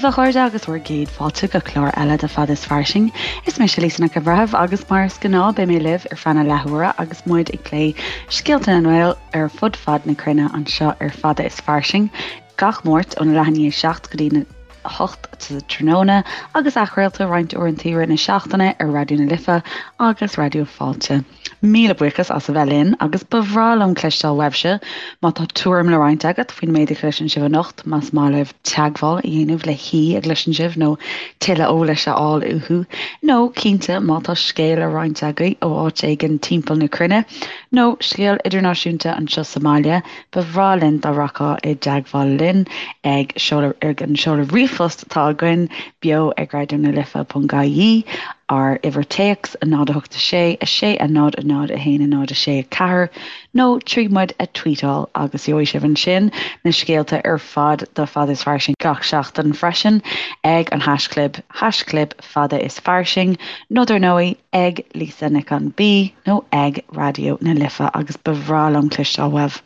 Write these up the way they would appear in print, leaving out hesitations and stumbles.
daoibh, a chairde, agus bhur gcéad fáilte go clár eile de Fada is Fairsing. Is mise Lisa Nic an Bhreithimh agus mar is gnáth beidh mé libh ar feadh na leathuaire agus muid ag plé scéalta na nGael ar fud fad na cruinne anseo ar Fada is Fairsing gach Máirt óna leath i ndiaidh 7 go dtí 8 sa tráthnóna agus athchraolta roinnt uaireanta i rith na seachtaine ar Raidió na Life agus Raidió Fáilte. Míle buíochas as a bheith linn agus ba bhreá liom cloisteáil uaibhse má tá tuairim le roinnt agat faoin méid a chloiseann sibh anocht, más maith libh teagmháil a dhéanamh le haoi a gcloiseann sibh nó tuilleadh eolais a fháil uathu, nó cinnte má tá scéal le roinnt agaibh ó áit éigin timpeall na cruinne, nó scéal idirnáisiúnta anseo sa mbaile, ba bhreá linn dá rachfá i dteagmháil linn ag seoladh ag an seoladh ríomhphost atá againn, beo ag raidió na life ponc ie, ár uimhir téacs, 0 8 6 6 0 0 1 0 6 4, nó trí muid a tweetáil agus gheobhaidh sibh ansin na scéalta ar fad do Fada is Fairsing gach seachtain freisin ag an haischlib, haischlib Fada is Fairsing, nó dar ndóigh ag Lisa Nic an B nó ag Raidió na Life agus ba bhreá liom cloisteáil uaibh.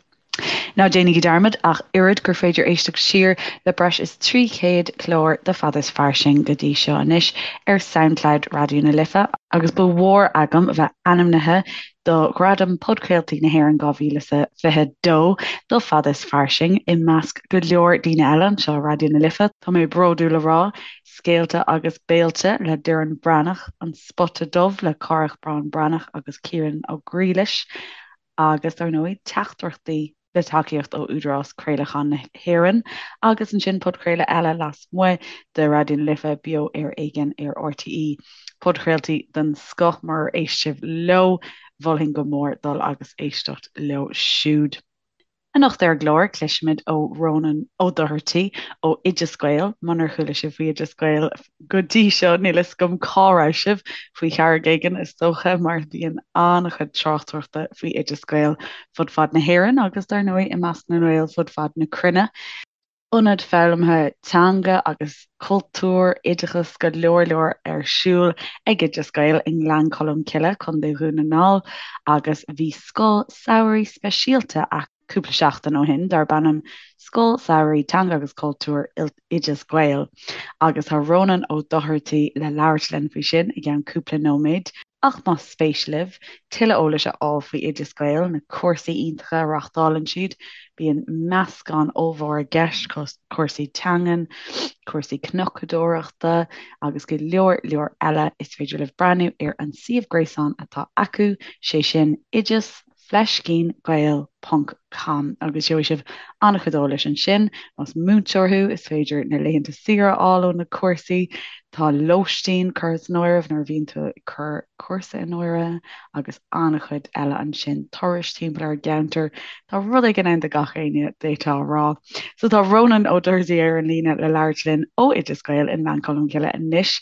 Ná déanaigí dearmad ach oiread gur féidir éisteacht siar le breis is 300 clár de Fada is Fairsing go dtí seo anois ar Soundcloud Raidió na Life agus ba mhór agam a bheith ainmnithe do Ghradam Podchraoltaí na hÉireann 2022 do Fada is Fairsing i measc go leor daoine eile anseo ar Raidió na Life. Tá mé bródúil a rá, Scéalta agus Béilte le Doireann Breathnach, An Spota Dubh le Cárthach Bán Breathnach agus Ciarán Ó Griallais, agus dar ndóigh Teachtaireachtaí le tacaíocht ó Údarás Craolacháin na hÉireann agus ansin podchraoladh eile lasmuigh de Raidió na Life, Beo ar Éigean ar RTÉ. Podchraoltaí den scoth murar éist sibh leo, mholfainn go mór dul agus éisteacht leo siúd. Anocht ar an gclár, cloisfimid ó Rónán Ó Dochartaigh ó Oideas Gael. Munar chuala sibh faoi Oideas Gael go dtí seo, níl fhios agam cá raibh sibh, faoi charraig éigin is dócha, mar bíonn an-chuid tráchtaireachta faoi Oideas Gael fud fad na hÉireann agus dar ndóigh i measc na nGael fud fad na cruinne. Ionad foghlamtha teanga agus cultúir, oideachas, go leor leor ar siúl ag Oideas Gael i nGleann Cholm Cille, Contae Dhún na nGall agus bhí scoil samhraidh speisialta acu cúpla seachtain ó shin darb ainm Scoil Samhraidh Teanga agus Cultúir Oideas Gael agus tá Rónán Ó Dochartaigh le labhairt linn faoi sin i gceann cúpla nóiméad. Ach más spéis libh tuilleadh eolais a fháil faoi Oideas Gael, na cúrsaí iontacha a reáchtálann siad, bíonn meascán ollmhór i gceist, cúrsaí teangan, cúrsaí cnocadóireachta agus go leor leor eile, is féidir libh breathnú ar an suíomh gréasáin atá acu, sé sin oideas fleiscín gael ponc com agus gheobhaidh sibh an-chuid eolais ansin. Más múinteoir thú, is féidir na laethanta saoire a fháil ó na cúrsaí. Tá lóistín curtha san áireamh nuair a bhíonn tú ag cur cúrsa in áirithe agus an-chuid eile ansin. Turais timpeall ar an gceantar. Tá rud éigin ann do gach éinne, d'fhéadfá a rá. So tá Rónán Ó Dochartaigh ar an líne le labhairt linn ó Oideas Gael i nGleann Cholm Cille anois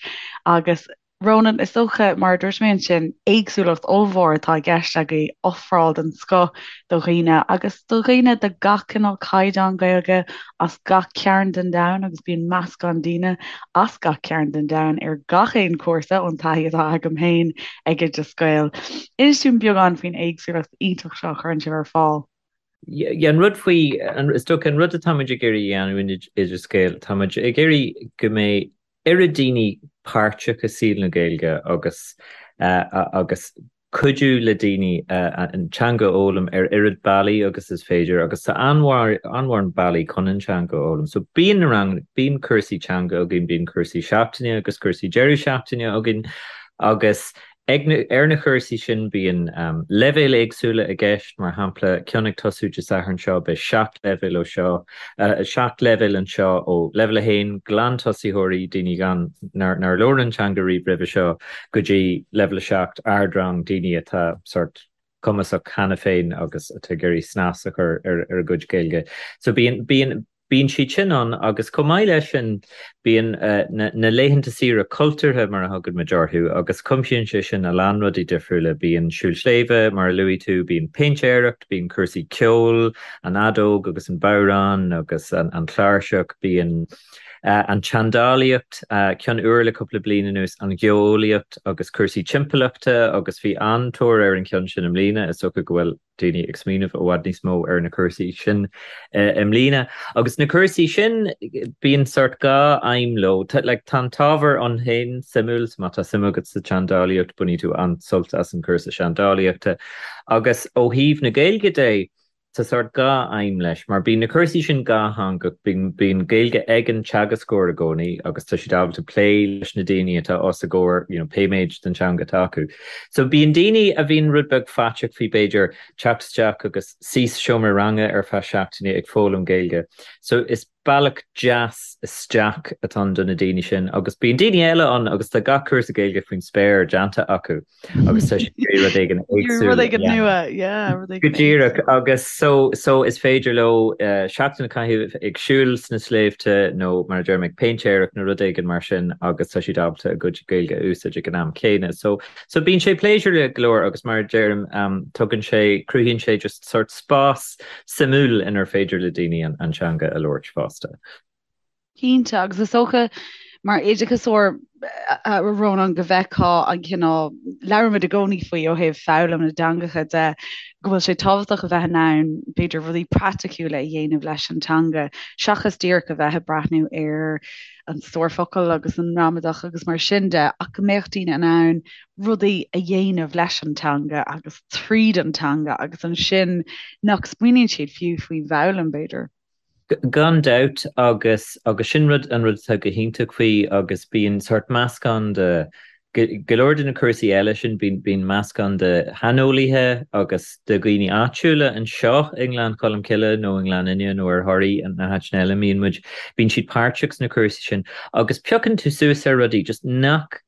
agus Rónán, is dócha, mar a dúirt mé ansin, éagsúlacht ollmhór atá i gceist agaibh, ofráil den scoth do dhaoine agus do dhaoine de gach cineál caighdeán Gaeilge as gach cearn den domhan agus bíonn meascán daoine as gach cearn den domhan ar gach aon chúrsa ón taithí atá agam féin ag Oideas Gael. Inis dúinn beagán faoin éagsúlacht iontach seo a chuireann sibh ar fáil. Yeah, an rud faoi, is dócha an rud atáimid ag iarraidh a dhéanamh in Oideas Gael, táimid ag iarraidh go mbeidh oiread daoine páirteach i saol na Gaeilge agus agus cuidiú le daoine an teanga a fhoghlaim ar oiread bealaí agus is féidir agus tá an-mhórán bealaí chun an teanga a fhoghlaim. So bíonn na ranganna, bíonn cúrsaí teanga againn, bíonn cúrsaí seachtaine agus cúrsaí deireadh seachtaine againn agus Ag na, ar na cúrsaí sin bíonn leibhéil éagsúla i gceist, mar shampla, ceann ag tosú Dé Sathairn seo, beidh 7 leibhéal ó seo, 7 leibhéal anseo, ó leibhéal 1, glantosaitheoirí, daoine gan, nár, nár labhair an teanga riamh roimhe seo, go dtí leibhéal 7, ardrang, daoine atá sórt cumasach cheana féin agus atá ag iarraidh snas a chur ar, ar a gcuid Gaeilge. So bíonn, bíonn. Bíonn siad sin ann agus chomh maith leis sin bíonn na laethanta saoire cultúrtha mar a thugann muid orthu agus cuimsíonn sé sin a lán rudaí difriúla. Bíonn siúl sléibhe mar a luaigh tú, bíonn péintéireacht, bíonn cúrsaí ceoil, an fheadóg agus an bodhrán agus an chláirseach, bíonn. An tseandálaíocht, ceann úr le cúpla bliain anuas, an gheolaíocht agus cúrsaí timpeallachta agus bhí an-tóir ar an cheann sin i mbliana, is dócha go bhfuil daoine ag smaoineamh i bhfad níos mó ar na cúrsaí sin i mbliana. Agus na cúrsaí sin, bíonn sórt dhá aidhm leo. Like, tá an t-ábhar ann féin suimiúil, so má tá suim agat sa tseandálaíocht, bainfidh tú an-sult as an chúrsa seandálaíochta. Agus ó thaobh na Gaeilge de, Tá sórt dhá aidhm leis, mar bíonn na cúrsaí sin dhátheangach, bíonn Gaeilge ag an teagascóir i gcónaí agus tá siad ábalta plé leis na daoine atá os a gcomhair, you know, pé méid den teanga atá acu. So bíonn daoine a bhíonn rud beag faiteach faoi b'fhéidir teacht isteach agus suí sa seomra ranga ar feadh seachtaine ag foghlaim Gaeilge. So is bealach deas isteach atá ann do na daoine sin agus bíonn daoine eile ann agus tá gach cúrsa Gaeilge faoin spéir déanta acu. agus tá siad ag iarraidh rud éigin éagsúil Rud éigin nua, yeah, rud éigin Go díreach agus so so is féidir leo seachtain a chaitheamh ag siúl sna sléibhte nó mar a deirim ag péintéireacht nó rud éigin mar sin agus tá siad ábalta a gcuid Gaeilge a úsáid ag an am céanna. So so bíonn sé pléisiúrtha go leor agus mar a deirim tugann sé cruthaíonn sé just sort spás suimiúil inar féidir le daoine an an teanga a labhairt fosta. Cinnte, agus is dócha mar oideachasóir, a Rónáin, go bhfeicfeá an cineál, labhraímid i gcónaí faoi ó thaobh foghlaim na dteangacha de, go bhfuil sé tábhachtach a bheith in ann, b'fhéidir, rudaí praiticiúla a dhéanamh leis an teanga, seachas díreach a bheith ag breathnú ar an stór focal agus an ngramadach agus mar sin de, ach go mbeadh daoine in ann rudaí a dhéanamh leis an teanga agus tríd an teanga agus ansin nach smaoiníonn siad fiú faoin bhfoghlaim, b'fhéidir. Gan dabht, agus agus sin rud an rud atá go hiontach faoi agus bíonn sórt meascán de go leor de na cúrsaí eile sin, bíonn bíonn meascán de shaineolaithe agus de dhaoine áitiúla anseo i nGleann Cholm Cille nó i nGleann Fhinne nó ar Thoraí na háiteanna eile a mbíonn muid, bíonn siad páirteach sna cúrsaí sin agus piocann tú suas ar rudaí just nach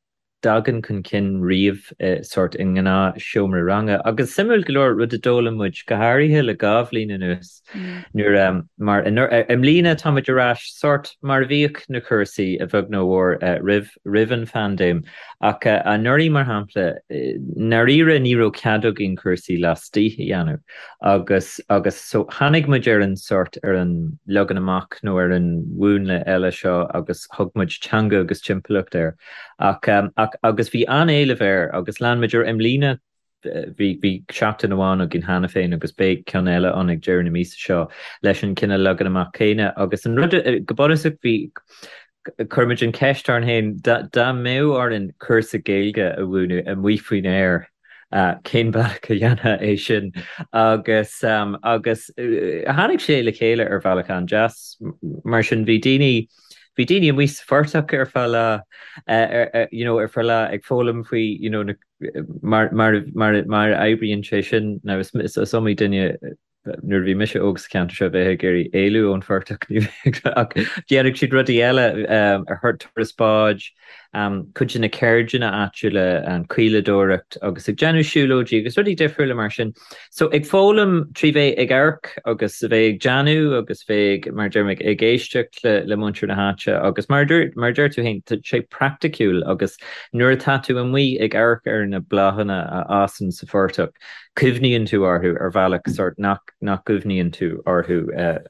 dtagann chun cinn riamh sórt i ngnáth seomra ranga. Agus suimiúil go leor, rud a d'fhoghlaim muid, go háirithe le dhá bhliain anuas, nuair, mar i mbliana tá muid ar ais sórt mar a bhíodh na cúrsaí, a bheag nó a mhór, roimh, roimh an phaindéim. Ach anuraidh, mar shampla, i ndáiríre ní raibh cead againn cúrsaí laistigh a dhéanamh. Agus, agus so tháinig muid ar an sórt, ar an leagan amach nó ar an mhúnla eile seo agus thug muid teanga agus timpeallacht air. Ach, ach, agus bhí an-éileamh air agus lean muid air i mbliana, bhí, bhí seachtain amháin againn cheana féin agus beidh ceann eile ann ag deireadh na míosa seo leis an cineál leagan amach céanna agus an rud, go bunúsach bhí, chuir muid an cheist orainn féin, dá, dá mbeadh orainn cúrsa Gaeilge a mhúineadh amuigh faoin aer, cén bealach a dhéanfá é sin? Agus, agus tháinig sé le chéile ar bhealach an-deas, mar sin bhí daoine, Bhí daoine amuigh sa phortach ar feadh lá, you know, ar feadh lá ag foghlaim faoi, you know, na, mar, mar, mar, mar a oibríonn sé sin. Now is, is, is iomaí duine nuair a bhí mise óg sa cheantar seo a bheadh ag iarraidh éalú ón phortach, ní bheadh, ach dhéanadh siad rudaí eile, ar turas báid, cuid de na ceirdeanna áitiúla, an caoladóireacht agus ag déanamh siúlóidí agus rudaí difriúla mar sin. So ag foghlaim trí bheith ag amharc agus a bheith ag déanamh agus bheith ag, mar a deirim, ag éisteacht le le muintir na háite agus mar a dúirt, mar a deir tú féin, tá sé praiticiúil agus nuair atá tú amuigh ag amharc ar na bláthanna a fhásann sa phortach, cuimhníonn tú orthu ar bhealach sórt nach, nach gcuimhníonn tú orthu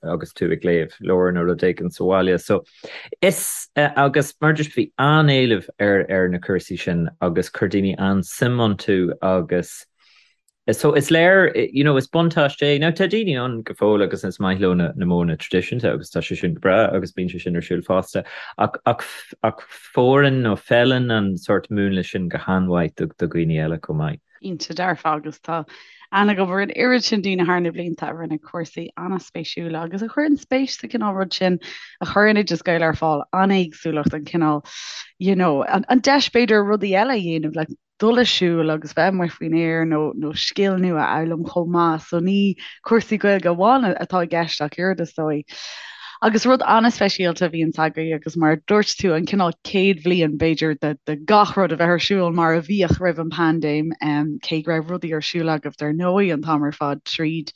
agus tú ag léamh leabhar nó rud éigin sa bhaile. So is, agus mar a dúirt, bhí an-éileamh ar ar na cúrsaí sin agus chuir daoine an-suim iontu agus, So is léir, you know, is buntáiste é. Now tá daoine ann go fóill agus is maith leo na na modhanna traidisiúnta agus tá sé sin go breá agus bíonn sé sin ar siúl fosta ach ach ach fóireann nó feileann an sórt múnla sin go han-mhaith do do dhaoine eile chomh maith. Cinnte dearfa agus tá aithne agam ar an oiread sin daoine thar na blianta a rinne cúrsaí an-spéisiúla agus a chuireann spéis sa chineál rud sin a chuireann Oideas Gael ar fáil, an éagsúlacht, an cineál, you know, an an deis b'fhéidir rudaí eile a dhéanamh like dul ag siúl agus bheith amuigh faoin aer nó nó scil nua a fhoghlaim chomh maith. So ní cúrsaí Gaeilge amháin atá i gceist ach oiread is dóigh. Agus rud an-speisialta a bhíonns agaibh agus mar a dúirt tú an cineál céad bhliain b'fhéidir de de gach rud a bheith ar siúl mar a bhíodh roimh an bpaindéim, cé go raibh rudaí ar siúl agaibh dar ndóigh an t-am ar fad tríd.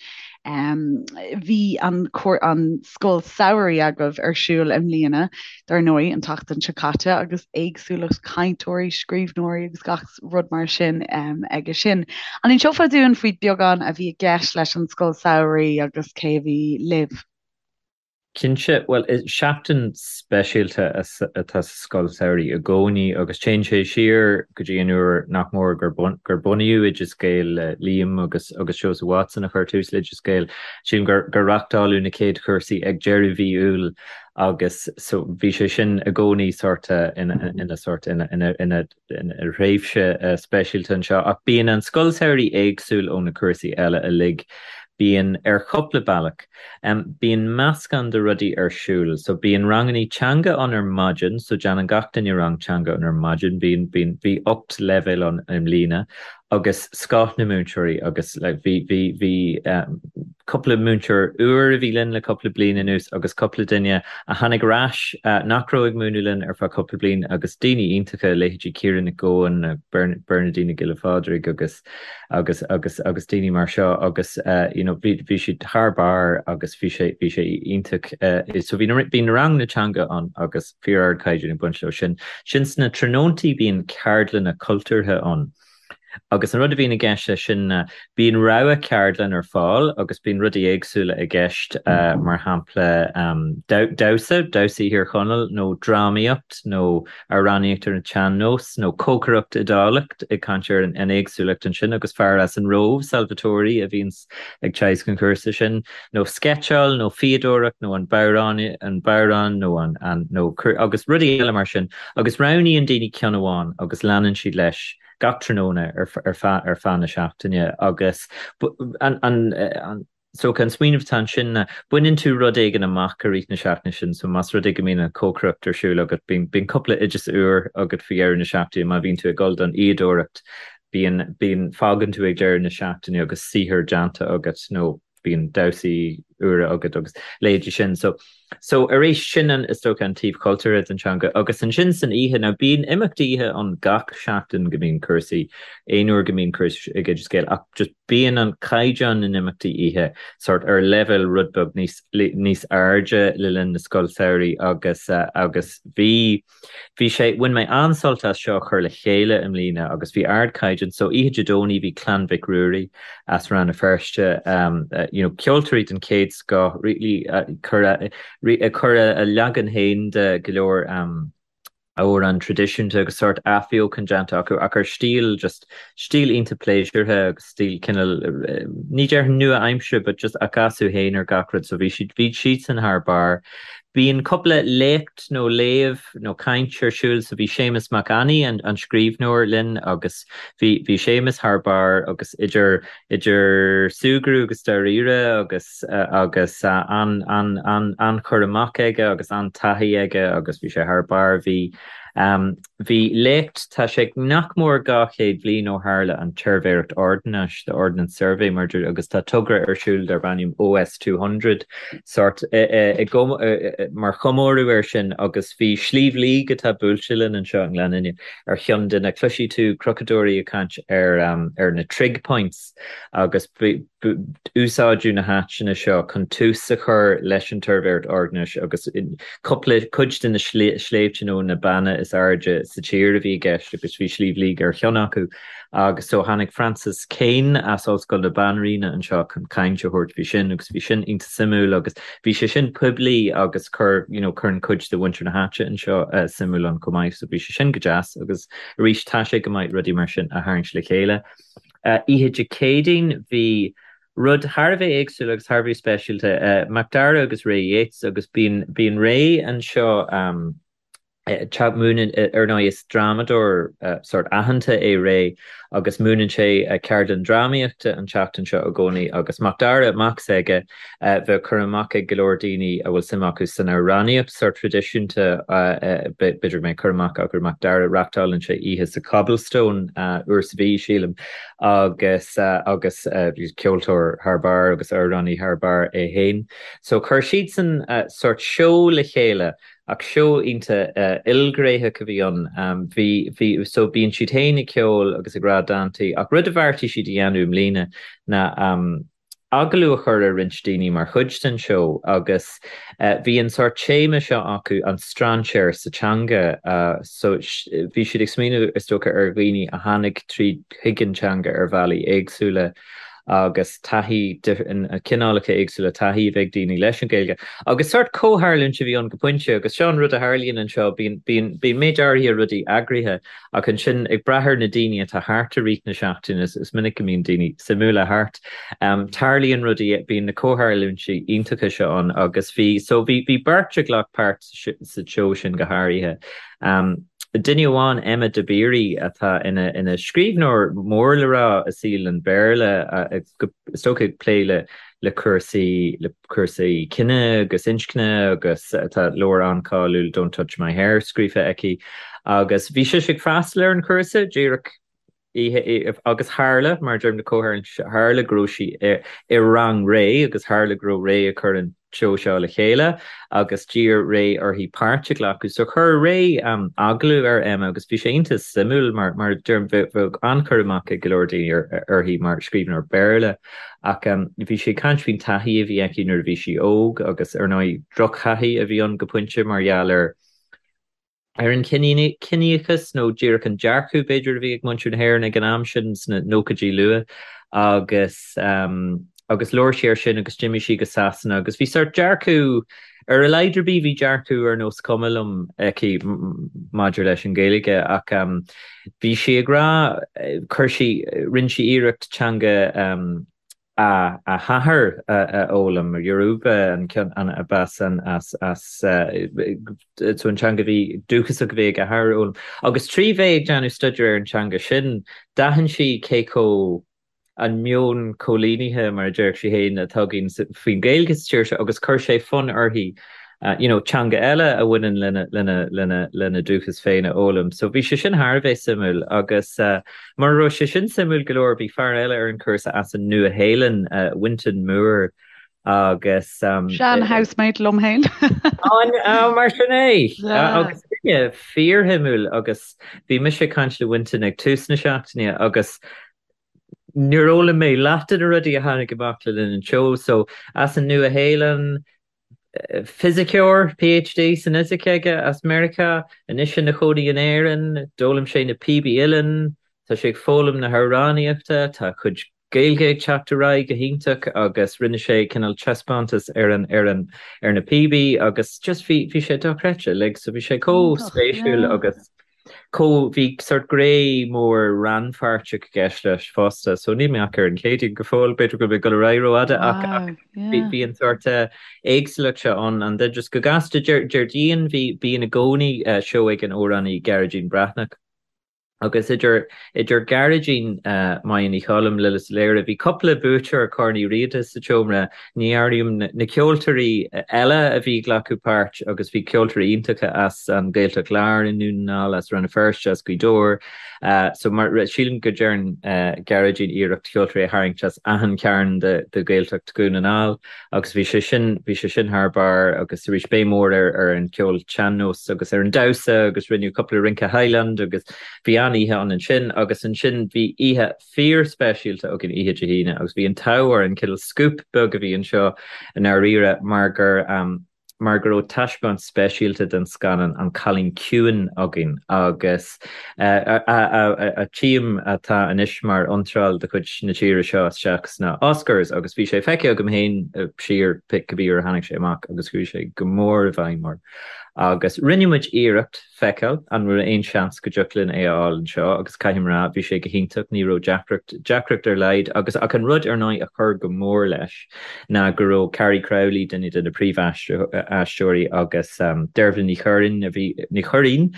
Bhí an an scoil samhraidh agaibh ar siúl i mbliana dar ndóigh, an tseachtain seo caite agus éagsúlacht cainteoirí, scríbhneoirí agus gach rud mar sin aige sin. An inseofá dúinn faoi beagán a bhí i gceist leis an scoil samhraidh agus cé a bhí libh? Cinnte, bhuel, seachtain speisialta atá sa scoil samhraidh i gcónaí agus téann sé siar go dtí an uair nach mór gur bunaíodh Oideas Gael le Liam agus agus Seosamh Watson a chuir tús le Oideas Gael. Sílim gur gur reáchtáladh na chéad chúrsaí ag deireadh mhí Iúil agus so bhí sé sin i gcónaí sórt ina ina sórt ina ina ina thréimhse speisialta anseo ach bíonn an scoil samhraidh éagsúil ó na cúrsaí eile uilig. Bíonn ar chúpla bealach. Bíonn meascán de rudaí ar siúl. So bíonn rangannaí teanga ann ar maidin, so déanann gach duine rang teanga ann ar maidin. Bíonn, bíonn, bhí 8 leibhéal ann i mbliana agus scoth na múinteoirí agus like bhí, bhí, bhí cúpla múinteoir úr a bhí linn le cúpla bliain anuas agus cúpla duine a tháinig ar ais nach raibh ag múineadh linn ar feadh cúpla bliain agus daoine iontacha, leithéidí Ciara Nic Gabhann, Bernadine Nic Giolla Phádraig agus agus agus agus daoine mar seo agus you know bhí bhí siad thar barr agus bhí sé bhí sé iontach so bhí na bhí na ranganna teanga ann agus fíor-ardchaighdeán ag baint leo sin. Sin sna tráthnóntaí bíonn ceardlanna cultúrtha ann. Agus an rud a bhíonn i gceist leis sin ná bíonn rogha ceardlann ar fáil agus bíonn rudaí éagsúla i gceist, mar shampla damhsa, damhsaí Thír Chonaill nó drámaíocht nó amhránaíocht ar an tsean-nós nó cócaireacht Iodálach, ag caint ar an éagsúlacht ansin agus fear as an Róimh, Salvatore, a bhíonns ag teagasc an chúrsa sin, nó sceitseáil nó fíodóireacht nó an bodhrán, an bodhrán nó an, an, nó agus rudaí eile mar sin agus roghnaíonn daoine ceann amháin agus leanann siad leis gach tráthnóna ar ar feadh ar feadh na seachtaine agus an an an so an smaoineamh atá ansin ná baineann tú rud éigin amach i rith na seachtaine sin so más rud é go mbíonn an chócaireacht ar siúl agat bíonn bíonn cúpla oideas úr agat faoi dheireadh na seachtaine má bhíonn tú ag dul don fhíodóireacht bíonn bíonn fágann tú ag deireadh na seachtaine agus saothar déanta agat nó bíonn damhsaí úra agat agus leithéidí sin. So so arís sin an is dócha an taobh cultúrtha den teanga agus ansin san oíche now bíonn imeachtaí oíche ann gach seachtain go mbíonn cúrsaí aon uair go mbíonn cúrsaí ag Oideas Gael ach just bíonn an caighdeán na n-imeachtaí oíche sort ar leibhéal rud beag níos níos airde le linn na scoil samhraidh agus agus bhí Bhí sé, bhain mé an-sult as seo a chur le chéile i mbliana agus bhí ardchaighdeán, so oíche Dé Domhnaigh bhí Clann Mhic Ruairí as Rann na Feirste, you know ceoltóirí den chéad scoth, really ag cur a leagan féin de go leor amhrán traidisiúnta agus sórt athbheochan déanta acu ach ar stíl just stíl iontach pléisiúrtha agus stíl cineál ní déarfainn nua-aimseartha but just a gcasadh féin ar gach rud so bhí siad bhí siadsan thar barr. Bíonn cúpla léacht nó léamh nó caint ar siúl so bhí Séamus Mac Annaidh an an scríbhneoir linn agus bhí bhí Séamus thar barr agus idir idir súgradh agus dáiríre agus agus an an an an-chur amach aige agus an-taithí aige agus bhí sé thar barr bhí Bhí léacht, tá sé nach mór 200 bliain ó tharla an tSuirbhéireacht Ordanáis, the Ordnance Survey, mar agus tá togra ar siúl darb ainm OS 200, sórt, mar chomóradh air sin agus bhí Sliabh Liag atá buailte linn anseo i nGleann Fhinne ar cheann de na, cloisfidh tú crochadóirí ag caint ar ar na trig points agus úsáideadh na háiteanna seo chun tús a chur leis an tSuirbhéireacht Ordanáis agus cúpla cuid de na sléibhte nó na beanna is airde sa tír a bhí i gceist agus bhí Sliabh Liag ar cheann acu agus so tháinig Francis Kane as Ollscoil na Banríona anseo chun caint a thabhairt faoi sin agus bhí sin iontach suimiúil agus bhí sé sin poiblí agus chuir you know cuireann cuid de mhuintir na háite anseo suimiúil ann chomh maith so bhí sé sin go deas agus arís tá sé go maith rudaí mar sin a tharraingt le chéile. Oíche Dé Céadaoin bhí rud thar a bheith éagsúil agus thar a bheith speisialta, Macdara agus Ray Yeates agus bíonn bíonn Ray anseo ag múineadh, ar ndóigh is drámadóir sórt aitheanta é Ray agus múineann sé ceardlann drámaíochta an tseachtain seo i gcónaí agus Macdara, mac s'aige, Bheadh cur amach ag go leor daoine a bhfuil suim acu san amhránaíocht sórt traidisiúnta, b'fhéidir go mbeidh cur amach acu ar Macdara, reachtálann sé oíche sa Cobblestone uair sa mhí, sílim, agus agus ceoltóir thar barr agus amhránaí thar barr é féin. So chuir siadsan sórt seó le chéile ach seó iontach ilghnéitheach a bhí ann. Bhí, bhí, so bíonn siad féin ag ceol agus ag rá dántaí ach rud a bheartaigh siad a dhéanamh i mbliana ná agallamh a chur ar roinnt daoine mar chuid den seó agus bhí an sórt téama seo acu, an strainséir sa teanga. So bhí siad ag smaoineamh is dócha ar dhaoine a tháinig tríd chuig an teanga ar bhealaí éagsúla. agus taithí, cineálacha éagsúla taithí a bheith ag daoine leis an Ghaeilge. Agus sórt comhtharlúint a bhí ann go pointe agus seo an rud a tharlaíonn anseo, bíonn, bíonn, bíonn méid áirithe rudaí eagraithe ach ansin ag brath ar na daoine atá thart i rith na seachtaine, is minic go mbíonn daoine suimiúla thart, tarlaíonn rudaí, bíonn na comhtharlúintí iontacha seo ann agus bhí, so bhí, bhí beirt a ghlac páirt sa tseó sin go háirithe. Duine amháin, Emma Dabiri, atá ina ina scríbhneoir mór le rá i saol an Bhéarla, is dócha ag plé le le cúrsaí le cúrsaí cine agus inscne agus tá leabhar an-cháiliúil Don't Touch My Hair scríofa aici agus bhí sise ag freastal ar an chúrsa díreach oíche agus tharla, mar a deirim na comhtharlúintí, tharla go raibh sí i rang Ray agus tharla go raibh Ray ag cur an tseó seo le chéile agus d'iarr Ray uirthi páirt a ghlacadh. So chuir Ray agallamh ar Emma agus bhí sé iontach suimiúil mar, mar a deirim, bheadh an-chur amach ag go leor daoine uirthi mar scríbhneoir Béarla ach bhí sí ag caint faoin taithí a bhí aici nuair a bhí sí óg agus ar ndóigh drochthaithí a bhí ann go pointe mar gheall ar ar an chiníochas nó díreach an dearcadh, b'fhéidir, a bhí ag muintir na hÉireann ag an am sin sna nóchaidí luath agus agus labhair sí air sin agus d'imigh sí go Sasana agus bhí sórt dearcadh, ar a laghad ar bith, bhí dearcadh ar nós cuma liom aici maidir leis an Ghaeilge ach bhí sí ag rá, chuir sí, rinne sí iarracht teanga a hathar a fhoghlaim, Yoruba an ceann a b'as an as as so an teanga a bhí dúchasach a bhí ag a hathair a fhoghlaim. Agus trí bheith ag déanamh staidéar ar an teanga sin, d'aithin sí cé chomh an meon coilínithe, mar a déarfadh sí féin, atá againn faoin Ghaeilge sa tír seo agus chuir sé fonn uirthi you know, teanga eile a bhaineann lena, lena, lena, lena dúchas féin a fhoghlaim. So bhí sé sin thar a bheith suimiúil agus uh, mura raibh sé sin suimiúil go leor, bhí fear eile ar an chúrsa as an Nua-Shéalainn, uh, Winton Moore, agus um, Sean housemate liom féin. An uh, mar sin é yeah. agus duine fíorshuimiúil agus bhí mise ag caint le Winton ag tús na seachtaine agus níor fhoghlaim mé leath de na rudaí a tháinig amach le linn an tseó, so as an Nua-Shéalainn, Fisiceoir, PhD san fhisic aige, as Meiriceá, anois ina chónaí in Éirinn. D'fhoghlaim sé na píobaí uilleann, tá sé ag foghlaim na hamhránaíochta, tá a chuid Gaeilge ag teacht ar aghaidh go hiontach agus rinne sé cineál taispeántas ar an ar an ar na píobaí agus just bhí bhí sé dochreidte like so bhí sé chomh spéisiúil agus chomh, bhí sórt gné mór rannpháirteach i gceist leis fosta, so níl mé ach ar an Chéadaoin go fóill, b'fhéidir go bhfuil mé ag dul ar aghaidh rófhada ach ach bhí bhí an sórt éagsúlacht seo ann and then just go gasta Déardaoin bhí bíonn i gcónaí seó ag an amhránaí Gearóidín Breathnach agus idir idir Gearóidín, Máire Ní Choilm, Lillis Ó Laoire, bhí cúpla buaiteoir Corn Uí Riada sa tseomra, Ní áirím na ceoltóirí eile a bhí ag glacadh páirt agus bhí ceoltóirí iontacha as an Ghaeltacht Láir i nDún na nGall, as Rann na Feirste, as Gaoth Dobhair. So mar sílim go dtearn Gearóidín iarracht ceoltóirí a tharraingt as achan chearn de Ghaeltacht Dhún na nGall agus bhí sé sin, bhí sé sin thar barr agus arís béim mhór ar ar an cheol sean-nós agus ar an damhsa agus rinneadh cúpla rince Highland agus bhí an-oíche ann ansin agus ansin bhí oíche fíorspeisialta againn oíche Dé hAoine agus bhí an t-ádh orainn, cineál scoop beag a bhí anseo i ndáiríre mar gur mar go raibh taispeáint speisialta den scannán An Cailín Ciúin againn agus a tchím atá anois mar iontráil de chuid na tíre seo isteach sna Oscars agus bhí sé feicthe agam féin siar cibé uair a tháinig sé amach agus chuaigh sé go mór i bhfeidhm orm agus rinne muid iarracht feiceáil an raibh aon seans go dtiocfadh linn é a fháil anseo agus caithfidh mé a rá, bhí sé go hiontach, ní raibh deacracht, deacracht ar laghad agus ach an rud ar ndóigh a chuir go mór leis ná go raibh Carrie Crowley, duine de na príomh-aisteoirí agus Dervla Ní Churraoin a bhí, Ní Churraoin,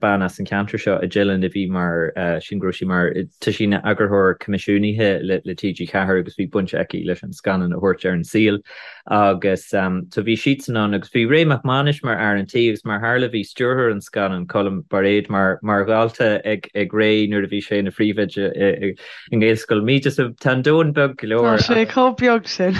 bean as an cheantar seo i dTeileann a bhí mar, sílim go raibh sí mar, tá sí ina eagarthóir coimisiúnaithe le le TG4 agus bhí baint aici leis an scannán a thabhairt ar an saol. Agus so bhí siadsan ann agus bhí Ray Mac Mánais mar fhear an tí agus mar tharla bhí stiúrthóir an scannáin, Colm Bairéad, mar mar dhalta ag ag Ray nuair a bhí sé ina phríomhoide i i nGaelscoil Míde. So tá an domhan beag go leor. Tá sé chomh beag sin.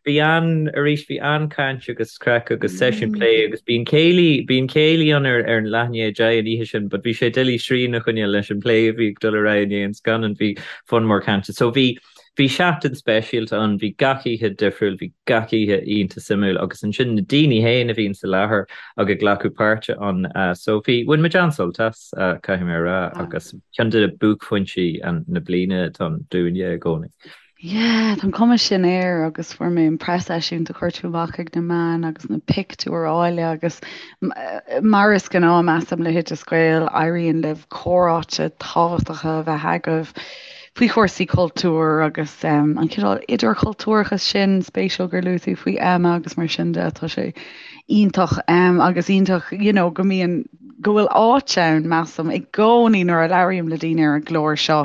Bhí an, arís bhí an-chaint agus craic agus seisiún plé agus bíonn céilí, bíonn céilí ann ar ar an leath i ndiaidh a 10 an oíche sin but bhí sé doiligh srian a choinneáil leis an plé a bhí ag dul ar aghaidh i ndiaidh an scannáin, bhí fonn mór cainte. So bhí. bhí seachtain speisialta ann, bhí gach oíche difriúil, bhí gach oíche iontach suimiúil agus ansin na daoine féin a bhíonn sa láthair ag ag glacadh páirte ann. So bhí, bhain muid an-sult as, caithfidh mé a rá, agus ceann de buaicphointí na bliana atá ann dúinne i gcónaí. Yeah, tá an cuma sin air agus fuair mé an preaseisiúint a chuir tú amach ag na meáin agus na pictiúir áille agus mar is gnáth measaim le hOideas Gael, éiríonn libh comhráite tábhachtacha a bheith agaibh faoi chúrsaí cultúir agus an cineál idirchultúrachas sin, spéisiúil gur luaigh tú faoi Emma agus mar sin de, tá sé iontach agus iontach you know go mbíonn, go bhfuil áit ann measaim i gcónaí nuair a labhraím le daoine ar an gclár seo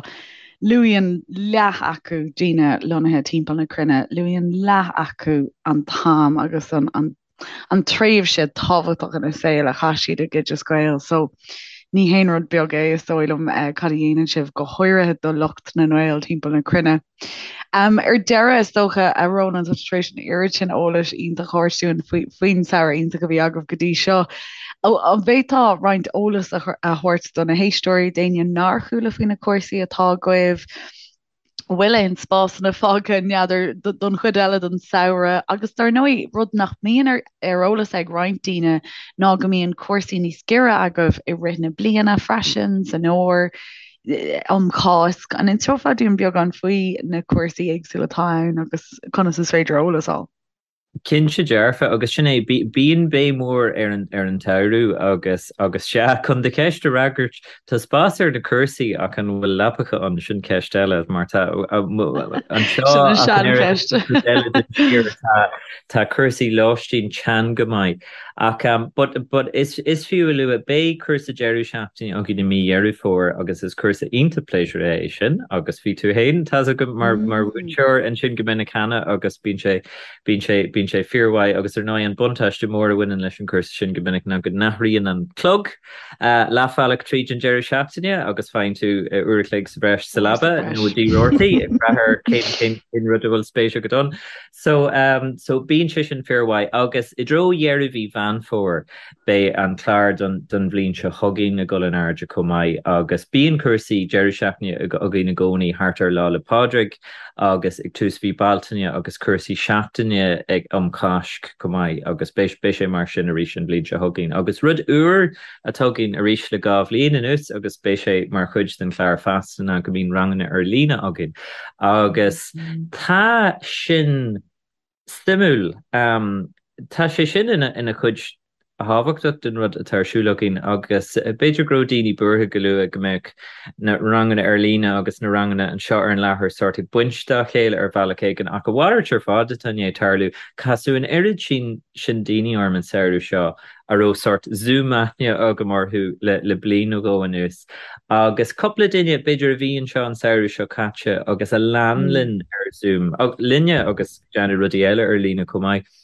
Luíonn leath acu, daoine lonnaithe timpeall na cruinne, luíonn leath acu an t-am agus an an tréimhse tábhachtach ina saol a chaith siad ag Oideas Gael. So ní haon rud beag é, is dóigh liom, cad a dhéanann sibh, go háirithe do lucht na nGael timpeall na cruinne. Ar deireadh, is dócha, a Rónáin, tá tú tar éis an oiread sin eolais iontach a thabhairt dúinn faoin samhradh iontach a bhí agaibh go dtí seo. An bhféadfá roinnt eolas a thabhairt do na héisteoirí, d'éinne nár chuala faoi na cúrsaí atá agaibh? An bhfuil aon spásanna fágtha, n'fheadar, don chuid eile den samhradh? Agus dar ndóigh, rud nach mbíonn ar eolas ag roinnt daoine ná go mbíonn cúrsaí níos giorra agaibh i rith na bliana freisin, san fhómhar. um Cháisc. An inseofá dúinn beagán faoi na cúrsaí éagsúla atá ann agus conas is féidir eolas a fháil? Cinnte dearfa, agus sin é, bíonn béim mhór ar an ar an tsamhradh agus agus sea, chun do cheist a fhreagairt, tá spás ar na cúrsaí ach an bhfuil leapacha ann, sin ceist eile, mar tá anseo Sin an seancheist. eile den tír, tá tá cúrsaí lóistín teann go maith. Ach but but is is fiú a lua, beidh cúrsa deireadh seachtaine againn i mí Dheireadh Fómhair agus is cúrsa iontach pléisiúrtha é sin agus bhí tú féin, tá's agam, mar mar mhúinteoir ansin go minic cheana agus bíonn sé bíonn sé bíonn sé fíormhaith agus ar ndóigh an buntáiste mór a bhaineann leis an gcúrsa sin go minic ná go n-athraíonn an clog leathbhealach tríd an deireadh seachtaine agus faigheann tú uair a chloig sa bhreis sa leaba nó i dTigh Roarty ag brath ar cén cén cén rud a bhfuil spéis agat ann. So, so bíonn sé sin fíormhaith agus i dtreo dheireadh mhí Mheán Fómhair beidh an clár don, don bhliain seo chugainn ag dul in airde chomh maith agus bíonn cúrsaí deireadh seachtaine againn i gcónaí thart ar Lá 'le Pádraig agus ag tús mhí Bealtaine agus cúrsaí seachtaine ag um Cháisc chomh maith agus beidh, beidh sé mar sin arís an bhliain seo chugainn. Agus rud úr atá againn arís le 2 bhliain anuas agus beidh sé mar chuid den chlár feasta ná go mbíonn ranganna ar líne againn agus tá sin suimiúil. Tá sé sin ina chuid thábhachtach den rud atá ar siúl againn agus b'fhéidir go raibh daoine buartha go luath go mbeadh na ranganna ar líne agus na ranganna anseo ar an láthair sórt ag baint dá chéile ar bhealach éigin ach a mhalairt ar fad atá i ndiaidh tarlú. Casadh an oiread sin sin daoine orm an samhradh seo a raibh sórt Zoom aithne agam orthu le bliain nó dhó anuas. Agus cúpla duine, b'fhéidir, a bhí anseo an samhradh seo caite agus a lean linn ar Zoom, linne agus ag déanamh rudaí eile ar líne chomh maith.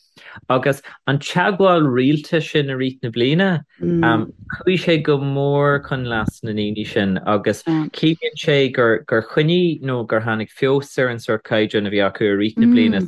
Agus an teagmháil rialta sin i rith na bliana, chuaigh sé go mór chun leas na ndaoine sin agus ciallaíonn sé gur choinnigh nó gur tháinig feabhas ar an sórt caighdeán a bhí acu i rith na bliana.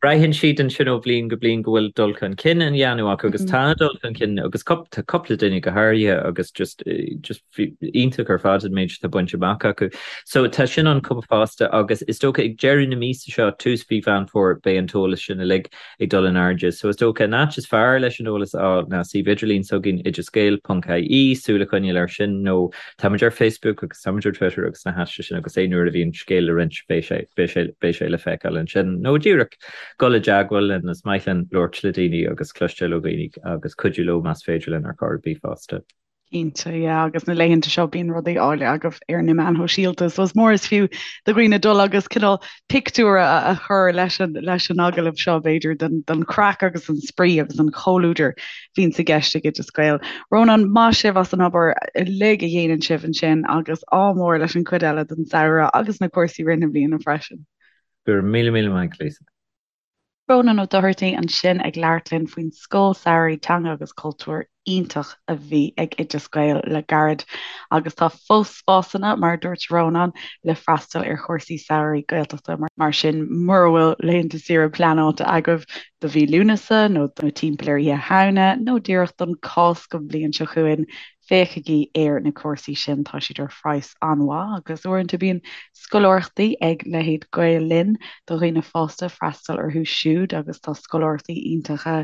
Braitheann siad ansin ó bhliain go bliain go bhfuil dul chun cinn á dhéanamh acu agus tá dul chun cinn agus tá cúpla duine go háirithe agus just just iontach ar fad an méid atá bainte amach acu. So tá sin ann chomh fosta agus is dócha ag deireadh na míosa seo, tús mhí Mheán Fómhair, beidh an t-eolas sin uilig ag dul in airde. So is dócha an áit is fearr leis an eolas a fháil ná suíomh idirlín s'againn oideasgael.ie, súil a choinneáil air sin nó Táimid ar Facebook agus táimid ar Twitter agus na háiteanna sin agus aon uair a bhíonn scéal le roinnt beidh sé, beidh sé, beidh sé le feiceáil ansin. Nó díreach dul i dteagmháil linn, is maith linn labhairt le daoine agus cloisteáil ó dhaoine agus cuidiú leo más féidir linn ar chor ar bith fosta. Cinnte, yeah, agus na laethanta seo bíonn rudaí áille agaibh ar na meáin shóisialta, so is mór is fiú do dhaoine dul agus cineál pictiúr a chur leis an, leis an agallamh seo b'fhéidir den, den chraic agus an spraoi agus an comhluadar bhíonns i gceist ag Oideas Gael. Rónán, maith sibh as an obair uilig a dhéanann sibh ansin agus ádh mór leis an chuid eile den samhradh agus na cúrsaí rith na bliana freisin. Go raibh míle míle maith agat, Lisa. Rónán Ó Dochartaigh ansin ag labhairt linn faoin Scoil Samhraidh Teanga agus Cultúir. iontach a bhí ag Oideas Gael le gairid agus tá fós spásanna, mar a dúirt Rónán, le freastal ar chúrsaí samhraidh Gaeltachta, mar sin mura bhfuil laethanta saoire pleanáilte agaibh do mhí Lúnasa nó timpeall ar Oíche Shamhna nó díreach don Cásc an bhliain seo chugainn, féachaigí ar na cúrsaí sin, tá siad ar phraghas an-mhaith agus uaireanta bíonn scoláireachtaí ag leithéid Gael Linn do dhaoine fásta freastal orthu siúd agus tá scoláireachtaí iontacha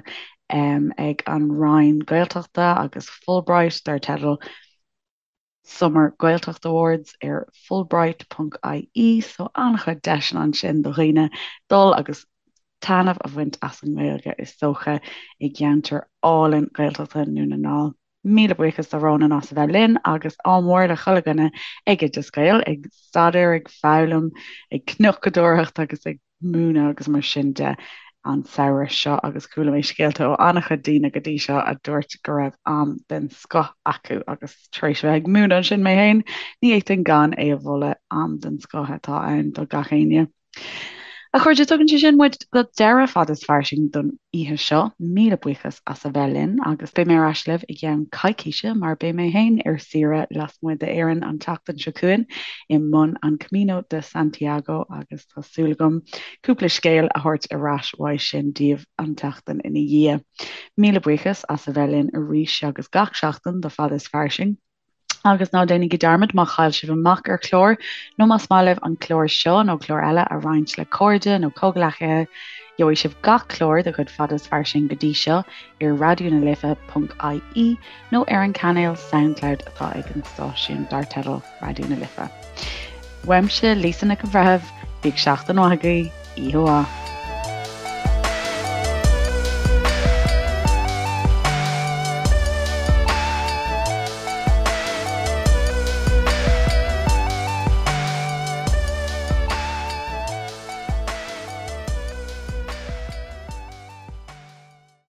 ag an Roinn Gaeltachta agus Fulbright dar teideal Summer Gaeltacht Awards ar fulbright.ie so an-chuid deiseanna ansin do dhaoine dul agus taitneamh a bhaint as an nGaeilge is dócha i gceantar álainn Gaeltachta Dhún na nGall. Míle buíochas do Rónán as a bheith linn agus ádh mór le chuile dhuine ag Oideas Gael, ag staidéar, ag foghlaim, ag cnocadóireacht agus ag múineadh agus mar sin de an samhradh seo agus chuala mé scéalta ó an-chuid daoine go dtí seo a dúirt go raibh am den scoth acu agus tar éis a bheith ag múineadh ansin mé féin, ní fhéadfainn gan é a mholadh, am den scoth atá ann do gach éinne. A chairde, tugann sé sin muid go deireadh Fada is Fairsing don oíche seo. Míle buíochas as a bheith linn agus beidh mé ar ais libh i gceann coicíse mar beidh mé féin ar saoire lasmuigh d'Éirinn an tseachtain seo chugainn i mbun an Camino de Santiago agus tá súil agam cúpla scéal a thabhairt ar ais uaidh sin daoibh an tseachtain ina dhiaidh. Míle buíochas as a bheith linn arís agus gach seachtain do Fada is Fairsing. Agus ná déanaigí dearmad má chaill sibh amach ar chlár nó más maith libh an clár seo nó clár eile a roinnt le cairde nó comhghleacaithe, gheobhaidh sibh gach clár de chuid Fada is Fairsing go dtí seo ar raidionalife.ie nó ar an cainéal Soundcloud atá ag an stáisiún dar teideal Raidió na Life. Uaimse, Lisa Nic an Bhreithimh, bíodh seachtain mhaith agaibh, oíche mhaith.